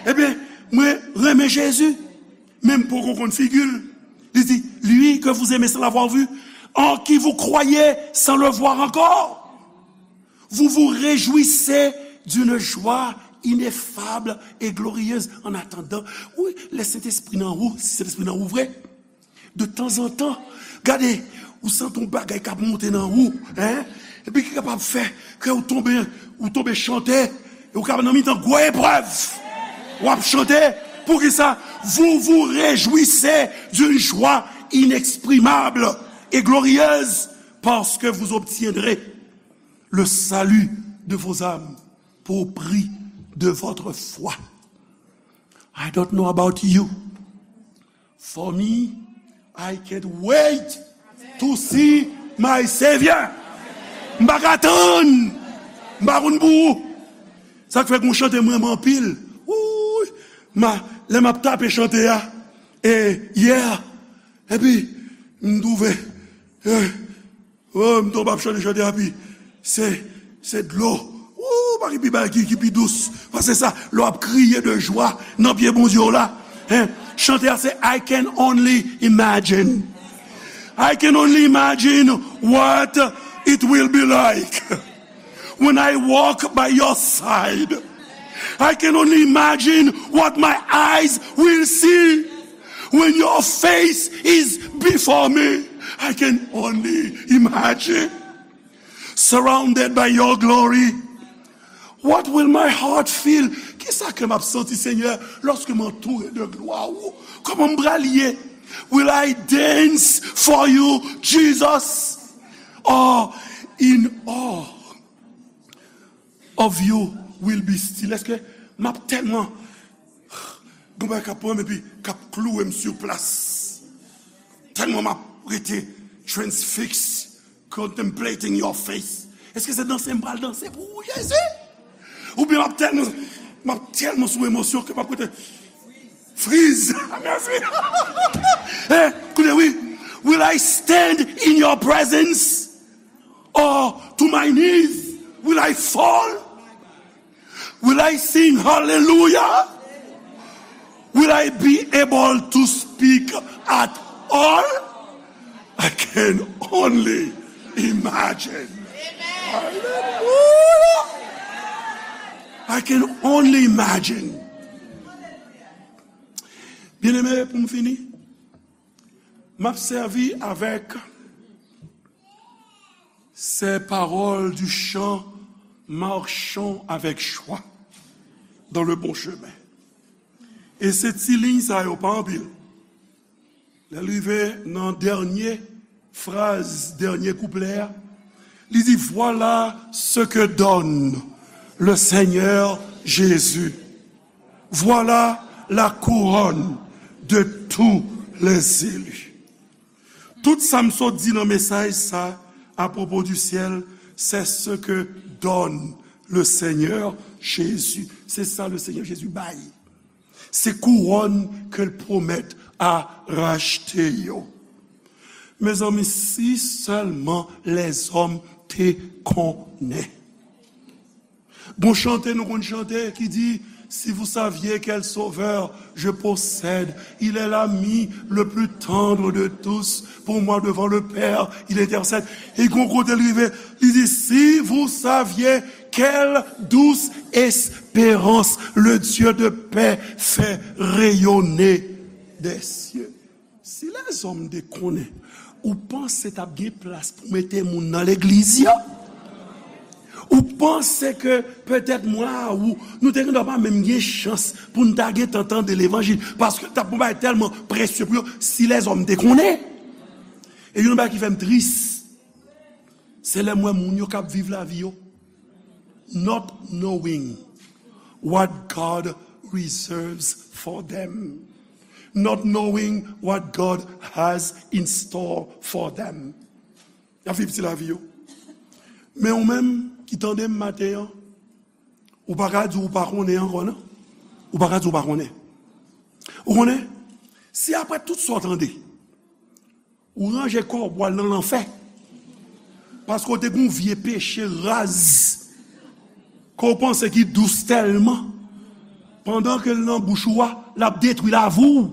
Ebyen, mwen renmen Jezi, men m poko konn figi l. Li di, lui que vous aimez sans l'avoir vu, en qui vous croyez sans le voir encore. Vous vous réjouissez d'une joie ineffable et glorieuse en attendant. Wi, lè Sentespri nan ou, si Sentespri nan ou vre, de tanzantan, gade, ou santi yon bagay k ap monte nan ou, hein? Epi ki kapab fè ke ou tonbe, ou tonbe chante, e ou kapab nan mitan gwo eprèv, w ap chante. Poukisa? Vous vous réjouissez d'une joie inexprimable et glorieuse, parce que vous obtiendrez le salut de vos âmes. pour prix de votre foi. I don't know about you. For me, I can't wait to see my Savior. M pa ka tann. M pa konn pou ou. Sa k fè gon chante m renmen anpil. Wouy, ma, lè m ap tape chante a, e, yeah. Epi, m twouve, eh, oh, m tonbe ap chante chante a, pi se, se dlo. Ou pa gen pi bagay ki, ki pi dous pase sa, lè w ap kriye de jwa nan pye Bondye w la. Hein? Chante a se I can only imagine. I can only imagine what it will be like when I walk by your side. I can only imagine what my eyes will see when your face is before me. I can only imagine. Surrounded by your glory. What will my heart feel? Kisa kè m ap santi, Senyè, lòske m antoure de glwa ou? Kòman m pral ye? Will I dance for you, Jesus? Or in awe of you will be still? Èske m ap tèlman gon bagay k ap pran m epi k ap klouwe m sou plas? Tèlman m ap rete transfixed, contemplating your face. Èske se danse m pral danse pou ou, Jezi? Oubyen m ap tèlman, m ap tèlman sou emosyon ke m ap rete friz. Mèsi. Eh, koute, wi. Will I stand in your presence? Or to my knees, will I fall? Will I sing hallelujah? Will I be able to speak at all? I can only imagine. Hallelujah. I can only imagine. Byeneme, pou m fini, m ap sèvi avèk ces paroles du chant Marchons avec joie dans le bon chemin. E se ti liy sa yo pa anpil. Lè l rive nan dènye fraz, dènye kouplè a, li di, Voilà ce que donne le Seigneur Jésus. Voilà la couronne de tous les élus. Tout sa m sot di nan mesaj sa apwopo di syèl, c'est ce que donne le Seigneur Jésus. Se sa le Seigneur Jésus bay. Se kouwòn ke l pwomèt a rachte yo. Mezanmi, si sèlman lèzòm te konnen. Gon chante nou konn chante ki di, Si vous saviez quel sauveur je possède, il est l'ami le plus tendre de tous, pour moi devant le Père, il intercède. E gon kote l rive, li di, Si vous saviez quelle douce espérance le Dieu de paix fait rayonner des cieux. Si lèzòm te konnen, ou panse t ap gen plas pou mete moun nan legliz yo? Ou panse ke petèt mwen a ou, nou te gendwa pa menm gen chans pou n ta gentan tande levanjil, paske l t ap yon bagay tèlman presye pou yo, si lèzòm te konnen? E youn nan bagay ki fè m tris, se lè m wè moun yo k ap viv lavi yo not knowing what God reserves for them, not knowing what God has in store for them. Y ap viv ti lavi yo. Men ou menm ki tande m maten an, ou pa ka di ou pa konnen ankò, non. Ou pa ka di ou pa konnen. Ou konnen, si apre tout sa w tande, ou ranje kò w pou w al nan lanfè, paske w te gen yon vye peche raz ke w panse ki dous tèlman, pandan ke l nan bouch ou a, l ap detwi lavi w,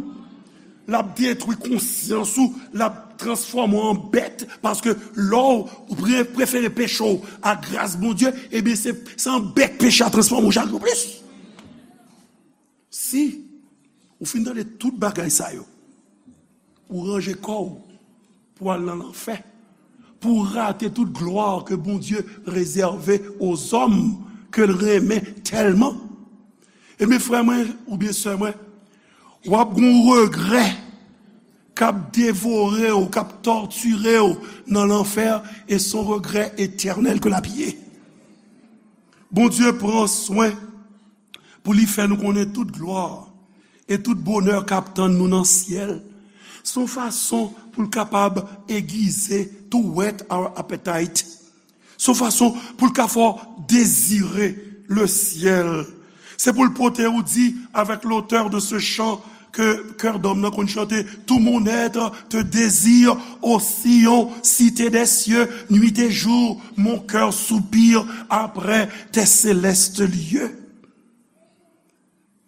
l ap detwi konsyans ou, l ap transfòme w an bèt, paske lè w pre-, prefere peche w a gras Bondye, ebyen, se, se an bèt peche a transfòme w chak jou plis. Si ou fin tande tout bagay sa yo, ou ranje kò w pou al nan lanfè, pou w rate tout glwa ke Bondye rezève aux hommes ke l renmen tèlman. Ebyen, frè mwen oubyen sè mwen, w ap gen yon regrè k ap devore w, k ap tòtire w nan lanfè, e se yon regrè etènèl ke l ap ye. Bondye pran swen pou li fè nou konnen tout glwa e tout bonè k ap tann nou nan syèl. Se yon fason pou l kapab aiguiser to whet our appetite. Se yon fason pou l ka fè w dezire le syèl. Se pou l pote ou di, avec l'auteur de ce chant ke kè dòm nan konn chante, tout mon être te désire, ô Sion, cité des cieux, nuit et jour, mon cœur soupire après tes célestes lieux.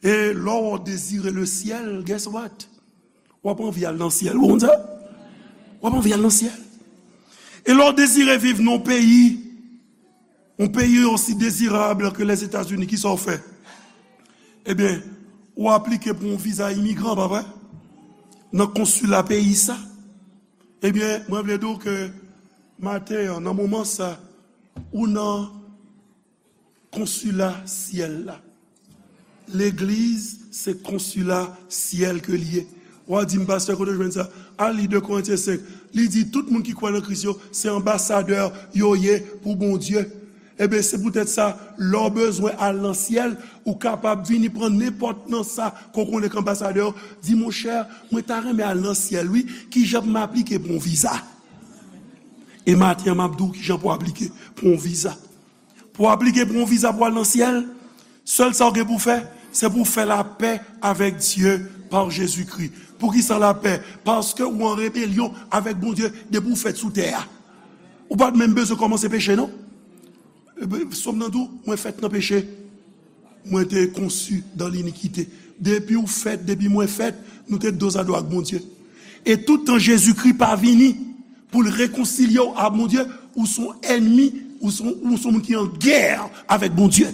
E lè w dezire le syèl, guess what? W ap anvi al nan syèl, ou konn sa? W ap anvi al nan syèl. E lè w dezire viv nan yon peyi, yon peyi osi dezirab ke Lèzetazini, kisa w fè? Ebyen, ou aplike pou yon viza imigran, pa vre? Nan konsila peyi sa. Ebyen, mwen vle di w ke maten an, nan moman sa, ou nan konsila syèl la. Legliz se konsila syèl ke l ye. W a di m, "Pastè, kote w jwenn sa?" Al li de Korentyen senk. Li di, "Tout moun ki kwè nan Kris yo, se anbasadè yo ye pou Bondye." Ebyen, se poutèt sa, lè w bezwen al nan syèl, ou kapab vini pran nenpòt nan sa ke w konnen k anbasadè yo. Di, "Monchè, mwen ta renmen al nan syèl, wi. Kijan pou m aplike pou yon viza?" E maten an, m ap di w kijan pou w aplike pou yon viza. Pou w aplike pou yon viza pou al nan syèl, sèl sa w gen pou w fè, se pou w fè lapè avèk Dye pa Jezikri. Poukisa lapè? Paske ou an rebelyon avèk Bondye depi w fèt sou tè a. Ou pa t menm bezwen kòmanse peche, non. Sòm nan di w, "Mwen fèt nan peche. Mwen te conçu dans l'iniquité." Depi w fèt, depi mwen fèt, nou te dozado ak Bondye. E tout tan Jezikri pa vini, pou l rekonsilye w a Bondye, ou se yon ènmi, ou se yon, ou se yon moun ki an gè avèk Bondye.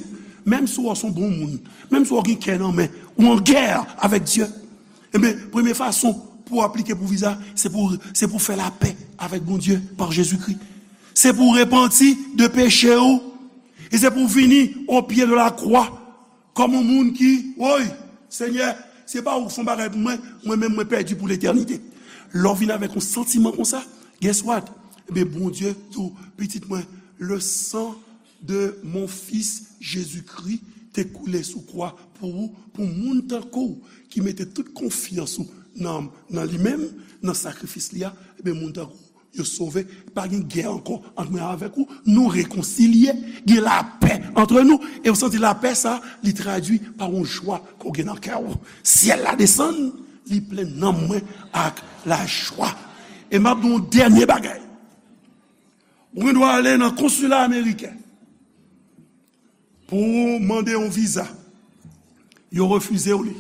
Menm si w se yon bon moun, menm si w gen kè nan men, ou an gè avèk Dye. Ebyen, premye fason pou w aplike pou viza, se pou, se pou w fè lapè avèk Bondye pa Jezikri. Se pou w repanti de peche w. E se pou w vini o pye de la kwa. Kòm yon moun ki, woy, Senyè, se pa ou k fè yon bagay pou mwen, mwen menm mwen pèdi pou letènite. Lè w vin avèk yon santiman konsa, guess what? Ebyen, Bondye di w, "Pitit mwen, le sang de mon fils Jésus-Christ te koule sou kwa pou ou, pou moun tankou w ki mete tout konfyans ou nan, nan li menm, nan sakrifis li a, ebyen, moun tankou w yo sove, pa gen gè ankò ant mwen avèk ou, nou rekonsilye, gen lapè ant nou, e w santi lapè sa, li tradui pa yon jwa ke w gen nan kè w. Syèl la desann, li plen nanm mwen ak lajwa." E m ap di w yon dènye bagay. Ou gen dwa ale nan konsila ameriken. Pou w mande yon viza, yo refize w li.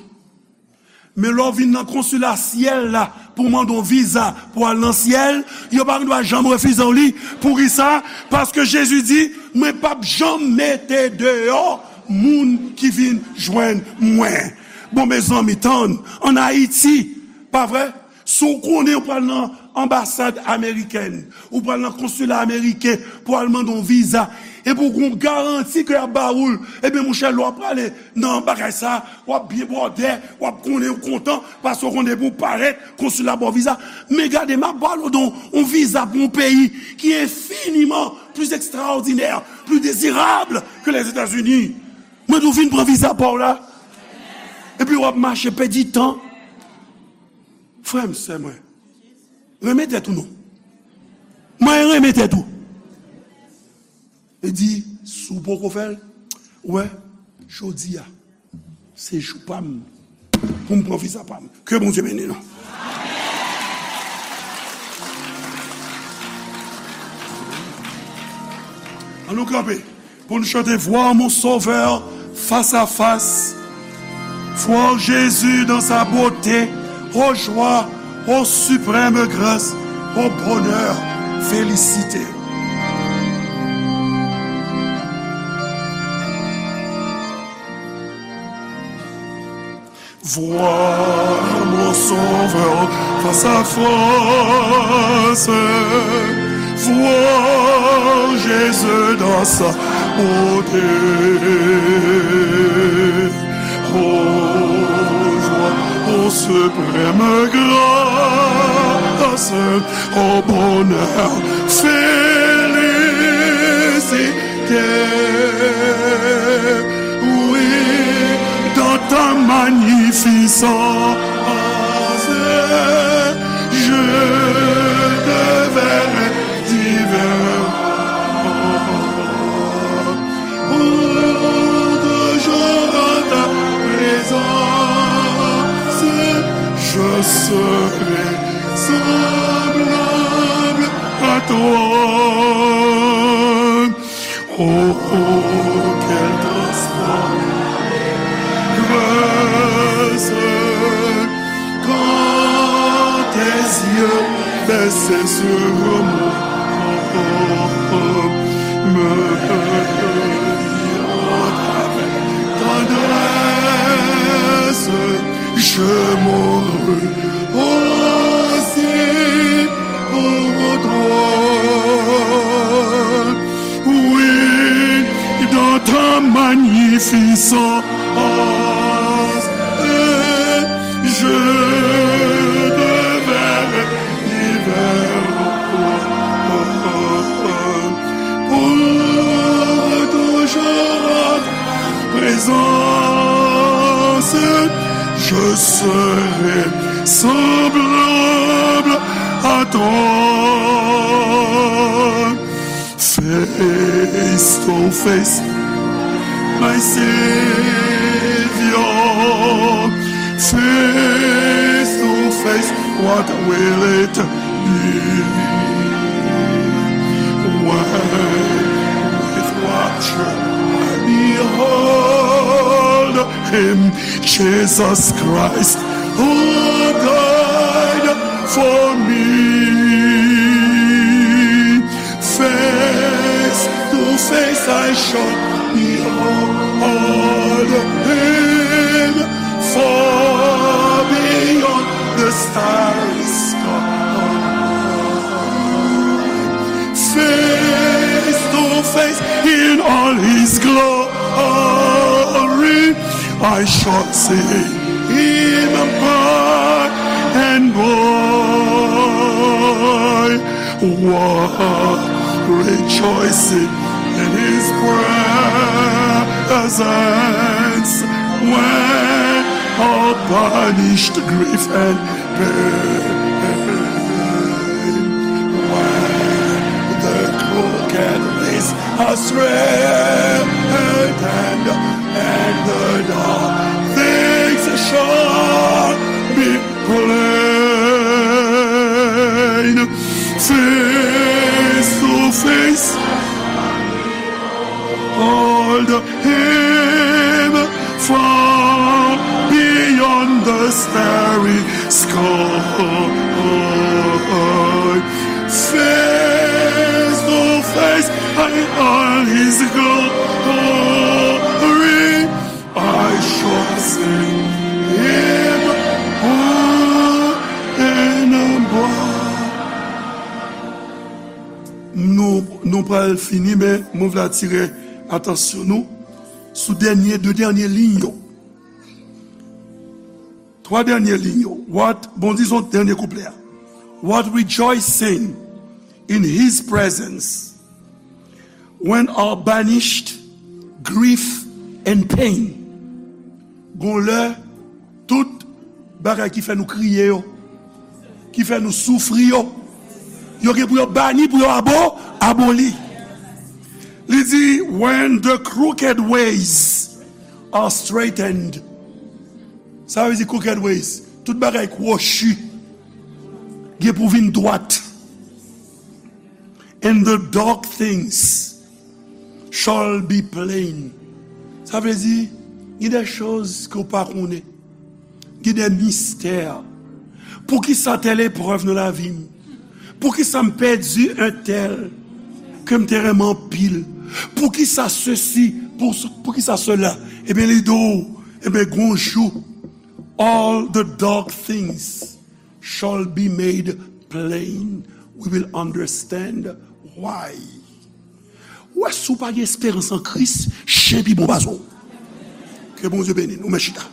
Men lè w vin nan konsila syèl la pou w mande yon viza pou w al nan syèl, yo pa gen dwa janm refize w li. Poukisa? Paske Jezi di, "Mwen p ap janm mete deyò moun ki vin jwenn mwen." Bon, mezanmi, tann, ann Ayiti, pa vre? Si w konnen w pral nan anbasad amerikèn, ou pral nan konsila ameriken pou al mande yon viza, epi w gen yon garanti ke y ap ba ou l, ebyen, monchè, lè w ap prale nan bagay sa, w ap byen bòdè, w ap konnen w kontan, paske w konnen pou w parèt, konsila ba w viza. Men gade, m ap pale w de yon, yon viza pou yon peyi ki enfiniman pli ekstraòdinè, pli dezirab ke Lèzetazini. Mwen di w vin pran viza pa w la, epi w ap mache pèdi tan. Frè m, sè mwen, renmen tèt ou non. Mwen renmen tèt ou. E di, si w poko fè l, ou wè, jodi a, se jou pa m pou m pran viza pa m. Ke Bondye beni nou. Ann nou kanpe. Pou nou chante, Voir mon Sauveur face à face. Voir Jésus dans sa beauté. Ô joie, ô suprême grâce, ô bonheur, félicité. Voir mon Sauveur face à face, voir Jésus dans sa beauté. Ô joie, ô suprême grâce, ô bonheur, félicité. Oui, dans ta magnificence, je te verrai divin. Pour toujours en ta présence, je serai semblable à toi. Oh, quelle transparence quand tes yeux baissent sur moi, me mirant avec tendresse, je mourrai aussi pour toi. Oui, dans ta magnificence, je te verrai divin. Pour toujours en ta présence, je serai semblable à toi. Face to face, my Savior. Face to face, what will it be? When with rapture I behold him, Jesus Christ, who died for me. Face to face I shall behold him, far beyond the starry sky. Face to face in all his glory, I shall see him by and by. What rejoicing in his presence, when all banished grief and pain, when the crooked ways are straightened, and the dark things shall be plain. Face to face, hold him far beyond the starry sky. Face to face, in all his glory, I shall see him by and by. Nou, nou pral fini, men mwen vle atire atansyon nou sou dènye, de dènye liy yo. Twa dènye liy yo. What, bon, dizon dènye kouplè a. What rejoicing in his presence, when all banished grief and pain. Gon lè, tout bagay ki fè nou kriye yo, ki fè nou soufri yo, yo gen pou yo bani, pou yo abo, aboli. Li di, when the crooked ways are straightened. Sa vle di crooked ways, tout bagay kwochi gen pou vin dwat. And the dark things shall be plain. Sa vle di, gen de choz ke w pa konnen. Gen de mistè. Poukisa tèl eprèv nan lavi m? Poukisa m pèdi entèl ke m te renmen anpil? Poukisa sesi? Pou, poukisa sela? Ebyen, li di w, ebyen, gon jou, all the dark things shall be made plain. We will understand why. Ou wè, si w pa gen esperans an Kris, chen pi bon pase w. Ke Bondye beni nou, men chita.